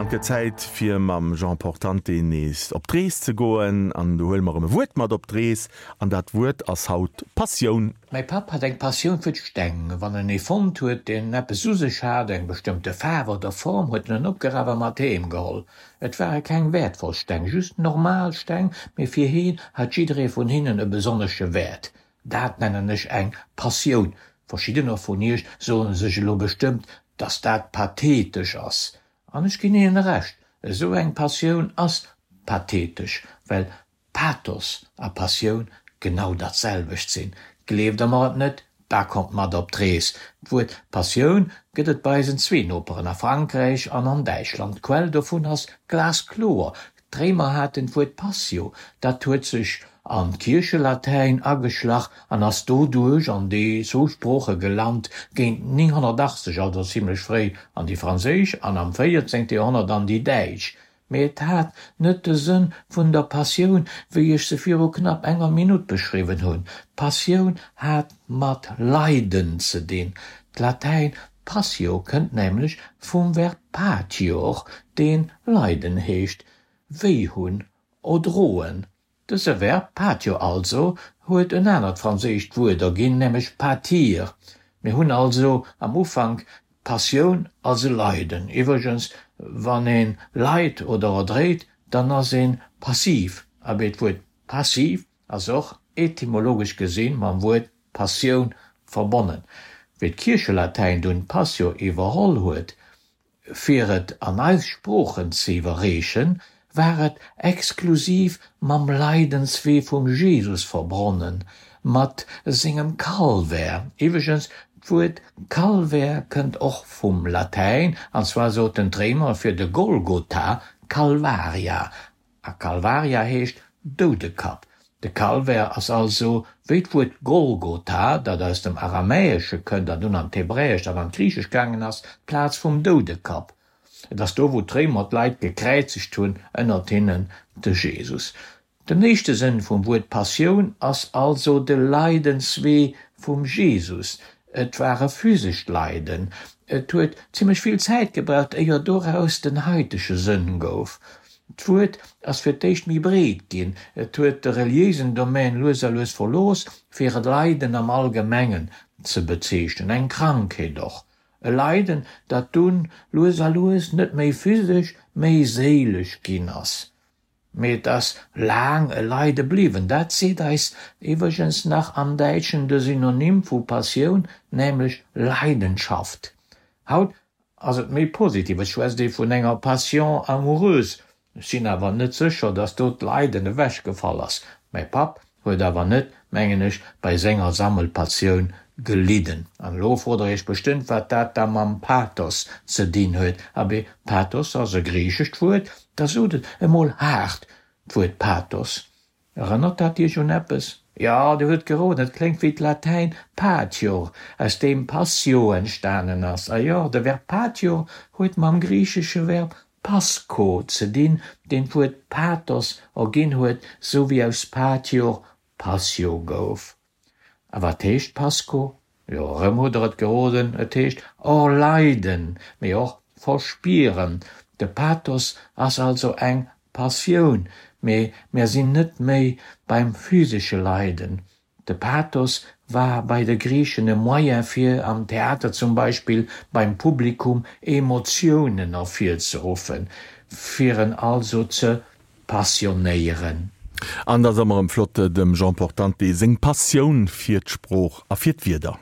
An et gëtt Zäit fir mam Jean Portante nees op d'Rees ze goen. An do huele mer erëm e Wuert mat op d'Rees. An dat Wuert ass haut Passioun. Mäi Papp hat eng Passioun fir d'Steng. Wann en ee fonnt huet, deen eppes u sech hat, eng bestëmmte Faarf oder Form, huet en en opgeraf a mat heem geholl. Et ware keng wäertvoll Steng, just normal Steng, mee fir heen hat jidderee vun hinnen e besonnesche Wäert. Dat nennen ech eng Passioun. Verschiddener vun iech soen sech elo bestëmmt, dass dat pathetesch ass. An ech ginn hinnen Recht, esou eng Passioun ass pathetesch, well Pathos a Passioun genau dat selwecht sinn. Gleeft der mer et net, da kommt mat op d'Rees. D'Wuert Passioun gëtt et bei eisen zwee Noperen a Frankräich an an Däitschland. D'Quell dovun ass glaskloer, D'Réimer haten d'Wuert Passio, dat huet sech an d'Kierchelatäin ageschlach an ass doduerch an déi zwou Sprooche gelant, géint 980, also zimlech fréi, an déi franséisch an am 14. Joerhonnert an déi däitsch. Mee et hat net de Sënn vun der Passioun, wéi ech se viru knapp enger Minutt beschriwwen hunn. D'Passioun hat mat Leiden ze dinn. D'Latäin Passio kënnt nämlech vum Verb patior, deen leiden heescht, wéi hunn, erdroen. Dëse Verb patio also huet en anert franséischt Wuert erginn, nämlech pâtir. Mir hunn also am Ufank d'Passioun als e Leiden. Iwwregens, wann ee leit oder erdréit, dann ass ee passiv. Abee, d'Wuert passiv ass och etymologesch gesinn mam Wuert Passioun verbonnen. Wéi d'Kierchelatäin dunn Passio iwwerholl huet, fir et an eis Sproochen ze iwwerreechen, war et exklusiv mam Leidenswee vum Jesus verbronnen, mat sengem Calvaire. Iwwregens, d'Wuert Calvaire kënnt och vum Latäin, an zwar soten d'Réimer fir de Golgotha Calvaria, A Calvaria heescht Doudekapp. De Calvaire ass also, wéi d'Wuert Golgotha, dat aus dem Aramäesche kënnt an dunn an d'Hebräescht an an d'Griichescht gaangen ass, d'Plaz vum Doudekapp. Et ass do, wou d'Réimer d'Leit gekräizegt hunn, ënnert hinnen de Jesus. Den éischte Sënn vum Wuert Passioun ass also de Leidenswee vum Jesus. Et war e physescht Leiden. Et huet zimmlech vill Zäit gebraucht, éier doraus den haitege Sënn gouf. D'Wuert ass fir d'éischt méi breet ginn, et huet de reliéisen Domän lues a lues verlooss, fir e Leiden am Allgemengen ze bezeechnen, eng Krankheet och. E Leiden, dat dunn lues a lues net méi physesch, méi séilesch ginn ass. Mee et ass laang e Leide bliwwen. Dat seet eis iwwregens nach am Däitschen de Synonym vu Passioun, nämlech Leidenschaft. Haut ass et méi positiv, et schwätzt ee vun enger Passion amoureuse. Ech sinn awer net sécher, datt do d'Leiden ewechgefall ass. Mäi Papp huet awer net, mengen ech, bei senger Sammelpatioun gelidden. An elo frot der iech bestëmmt, wat dat da mam Pathos ze dinn huet. Abee, Pathos ass e griichescht Wuert, da sot et emol haart, d'Wuert Pathos. Erënnert dat iech un eppes? Jo, dir hutt geroden, et kléngt wéi d'Latäin patior, aus deem passio entstanen ass. A jo, de Verb patior huet mam griichesche Verb pascho ze dinn, deen d'Wuert pathos erginn huet, sou wéi aus patior passio gouf. A wat heescht Pasco? Jo, erëm hutt der et geroden, et heescht erleiden, mee och verspieren. De Pathos ass also eng Passioun, mee mär sinn net méi beim physesche Leiden. De Pathos war bei de Griichen e Moyen fir, am Theater zum Beispill, beim Publikum Emotiounen ervirzeruffen, fir en also ze passionéieren. An et ass ëmmer erëm flott, dem Jean Portante seng Passioun fir d'Sprooch a fir d'Wierder.